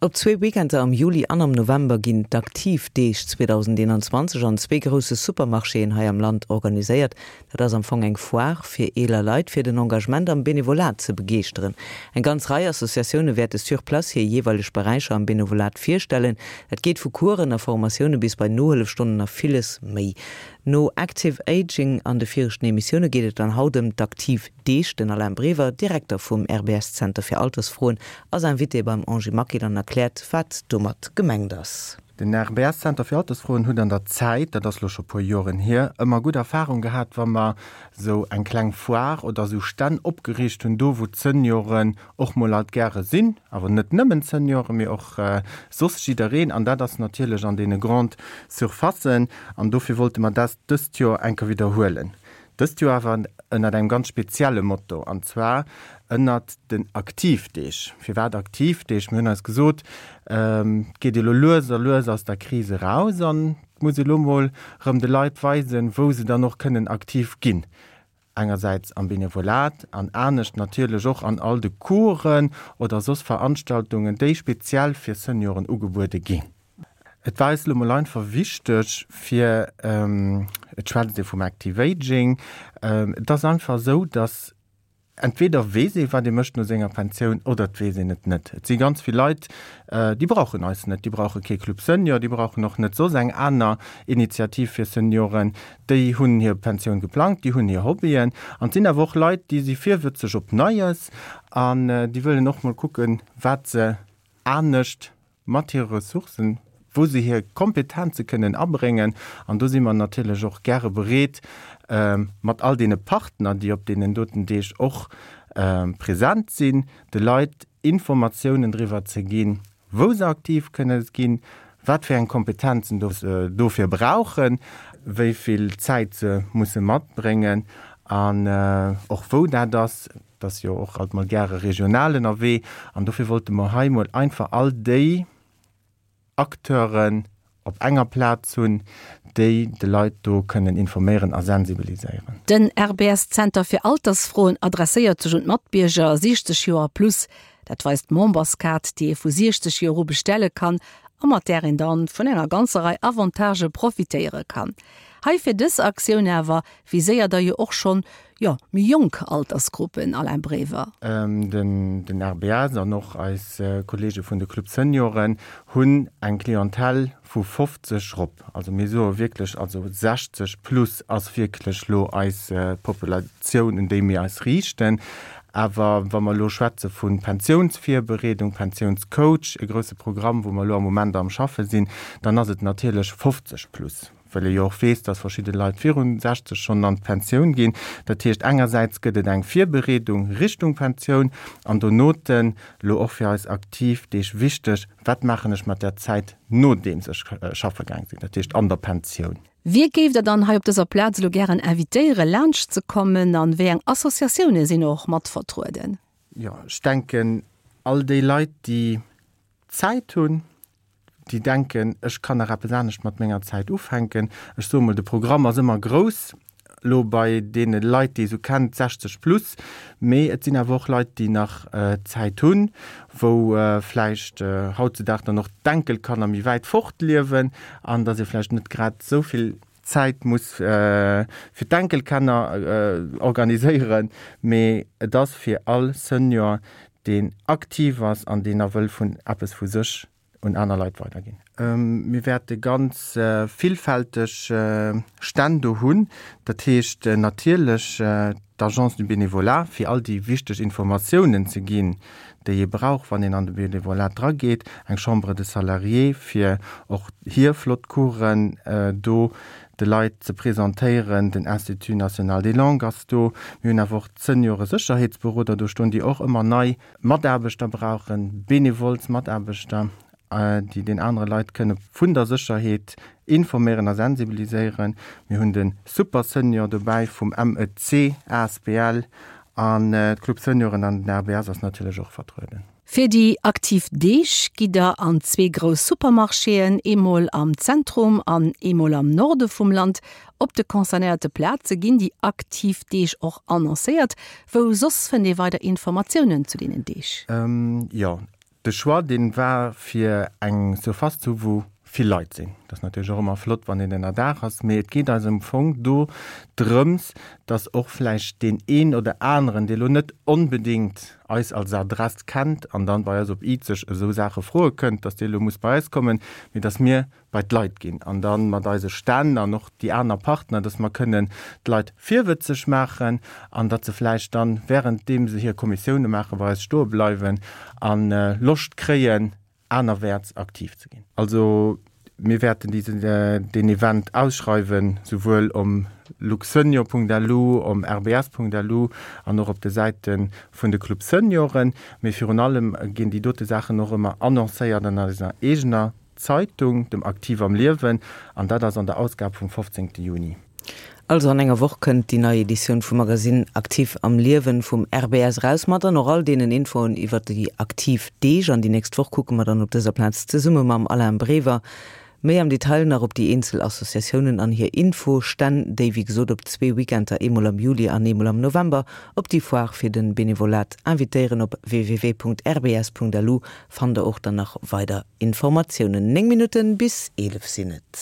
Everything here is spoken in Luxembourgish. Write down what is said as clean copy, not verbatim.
Op zwee Weekender am Juli an am November ginn d'Aktiv Deeg 2021 an zwee grousse Supermarchéen hei am Land organiséiert. Dat ass am Fong eng Foire fir eeler Leit, fir den Engagement am Benevolat ze begeeschteren. Eng ganz Rei Associatioune wäerte sur place hir jeeweileg Beräicher am Benevolat virstellen. Dat geet vu Coursen a Formatioune bis bei Nohëllefstonnen a villes méi. No Active Aging an de viregten Emissioune geet et dann haut ëm d'Aktiv Deeg. Den Alain Brever, Direkter vum RBS-Zenter fir Altersfroen, ass Invité beim Angie Maquil an erkläert, wat domat gemengt ass. Den RBS-Zenter fir Altersfroen huet an der Zäit, dat ass lo scho puer Joren hier, ëmmer gutt Erfahrung gehat, wa mer sou eng kleng Foire oder sou Stänn opgeriicht hunn, do wou d'Senioren och mol alt gäre sinn, awer net nëmmen d'Senioren, mee och soss jiddereen, an dat ass natierlech an deene Grande Surfacen. An dofir wollte mer dat dëst Joer eng Kéier widderhuelen. Dëst Joer awer ënnert engem ganz spezielle Motto, an zwar ënnert den Aktivdeeg. Firwat Aktivdeeg? Mir hunn eis gesot, et geet elo lues a lues aus der Kris eraus an et muss ee lo mol erëm de Leit weisen, wou se dann och kënnen aktiv ginn. Engersäits am Benevolat an anescht natierlech och an all de Coursen oder soss Veranstaltungen, déi speziell fir Senioren ugebuede ginn. Et war eis elo mol einfach wichteg fir, et schwätzt ee vum Active Aging, et ass einfach esou, datt entweder weess ee wat ee mécht no senger Pensioun oder et weess een et net. Et si ganz vill Leit, déi brauchen eis net, déi brauche kee Club Senior, déi brauchen och net soss eng aner Initiativ fir Senioren, déi hunn hir Pensioun geplangt, déi hunn hir Hobbyen. An et sinn awer och Leit, déi si virwëtzeg op Neies an déi wëllen och mol kucken, wat se anescht mat hire Ressourcen, wou se hir Kompetenze kënnen abréngen. An do si mer natierlech och gäre bereet, mat all deene Partner, déi op deenen doten Deeg och present sinn, de Leit Informatiounen driwwer ze ginn, wou se aktiv kënne ginn, wat fir eng Kompetenzen se dofir brauchen, wéi vill Zäit se musse matbréngen an och wou dat ass. Et ass jo och alt mol gäre regional ënnerwee an dofir wollte mer hei mol einfach all déi Acteuren op enger Plaz hunn, déi de Leit do kënnen informéieren a sensibiliséieren. Den RBS-Zenter fir Altersfroen adresséiert sech un d'Matbierger 60 Joer a plus. Dat weist d'Memberskaart, déi ee vu 60 Joer u bestelle kann a mat där een dann vun enger ganzer Rei Avantagë profitéiere kann. Hei fir dës Aktioun awer viséiert der jo och schonn jo, méi jonk Altersgruppen, Alain Brever. Den RBS an och eis Kollege vun de Club Senioren hunn eng Clientèle vu 50 rop. Also mir soe wierklech, also 60 plus ass wierklech lo eis Populatioun, un déi mir eis riichten. Awer wa mer elo schwätze vu Pensiounsvirbereedung, Pensiounscoach, e grousse Programm, wou mer elo am Moment am Schaffe sinn, dann ass et natierlech 50 plus. Well ee jo och weess, dass verschidde Leit virun 60 schonn an d'Pensioun ginn. Dat heescht, engersäits gëtt et eng Virbereedung Richtung Pensioun an donoten, elo och fir eis aktiv Deeg wichteg, wat maachen ech mat där Zäit nodeems ech schaffe gaang sinn, dat heescht an der Pensioun. Wie géift Der dann hei op dëser Plaz elo gären invitéieren, laanscht ze kommen an wéi eng Associatioune sinn och mat vertrueden? Jo, ech denken, all déi Leit, déi Zäit hunn, déi denken, ech kann nach eppes anescht mat menger Zäit ufänken. Ech soe mol, de Programm ass ëmmer grouss elo bei deene Leit, déi ee sou kennt, 60 plus, mee et sinn awer och Leit, déi nach Zäit hunn, wou vläicht hautzudag dann och d'Enkelkanner méi wäit fort liewen an datt ee vläicht net grad esou vill Zäit muss fir d'Enkelkanner organiséieren. Mee et ass fir all Senior, deen aktiv ass an deen nach wëll vun eppes vu sech un aner Leit weiderginn. Mir wäerte ganz villfälteg Stänn do hunn, dat heescht natierlech d'Agence du Bénévolat, fir all déi wichteg Informatiounen ze ginn, déi ee brauch, wann een an de Bénévolat drageet, eng Chambre des Salariés, fir och hir flott Coursen do de Leit ze presentéieren, den Institut national des langues ass do, mir hunn awer och d'Senioresécherheetsberoder do stoen, déi och ëmmer nei Mataarbechter brauchen, bénévoles Mataarbechter, déi den anere Leit kënne vun der Sécherheet informéieren a sensibiliséieren. Mir hunn de Super Senior dobäi vum MEC asbl an d'Club Senioren an den RBS ass natierlech och vertrueden. Fir déi aktiv Deeg gitt der an zwee grouss Supermarchéen, eemol am Zentrum an eemol am Norde vum Land. Op de concernéierte Plaze ginn déi aktiv Deeg och annoncéiert. Wou soss fënnt ee weider Informatiounen zu deenen Deeg? Jo. De Choix, dee war fir eng Surface ze hu wou vill Leit sinn. Dat ass natierlech och ëmmer flott, wann een ënnerdaach ass, mee et geet eis am Fong do drëms, dass och vläicht deen een oder aneren, dee lo net onbedéngt eis als Adress kennt an dann bei eis op Izeg esou Saache froe kënnt, dass dee lo muss bei eis kommen, mee dass mir bei d'Leit ginn an da mat eise Stänn an och déi aner Partner, dass mer kënnen d'Leit virwëtzeg maachen an datt se vläicht dann, währenddeem se hir Kommissioune maachen, bei eis stoe bleiwen a Loscht kréien, anerwäerts aktiv ze ginn. Also mir wäerten deen Event ausschreiwen, souwuel om luxsenior.lu, om rbs.lu an och op de Säite vun de Club Senioren. Mee virun allem ginn déi dote Saachen och ëmmer annoncéiert an eiser eegener Zeitung, dem Aktiv am Liewen, an dat ass an der Ausgab vum 15. Juni. Also an enger Woch kënnt déi nei Editioun vum Magasinn Aktiv am Liewen vum RBS eraus, mat dann och all deenen Infoen iwwert déi aktiv Deeg. An déi nächst Woch kucke mer dann op dëser Plaz zesumme mam Alain Brever méi am Detail nach op déi eenzel Associatiounen an hir Infostänn, déi wéi gesot op zwee Weekender, eemol am Juli an eemol am November, op déi Foire fir de Benevolat invitéieren. Op www.rbs.lu fannt der och dann nach weider Informatiounen. 9 Minutten bis 11 sinn et.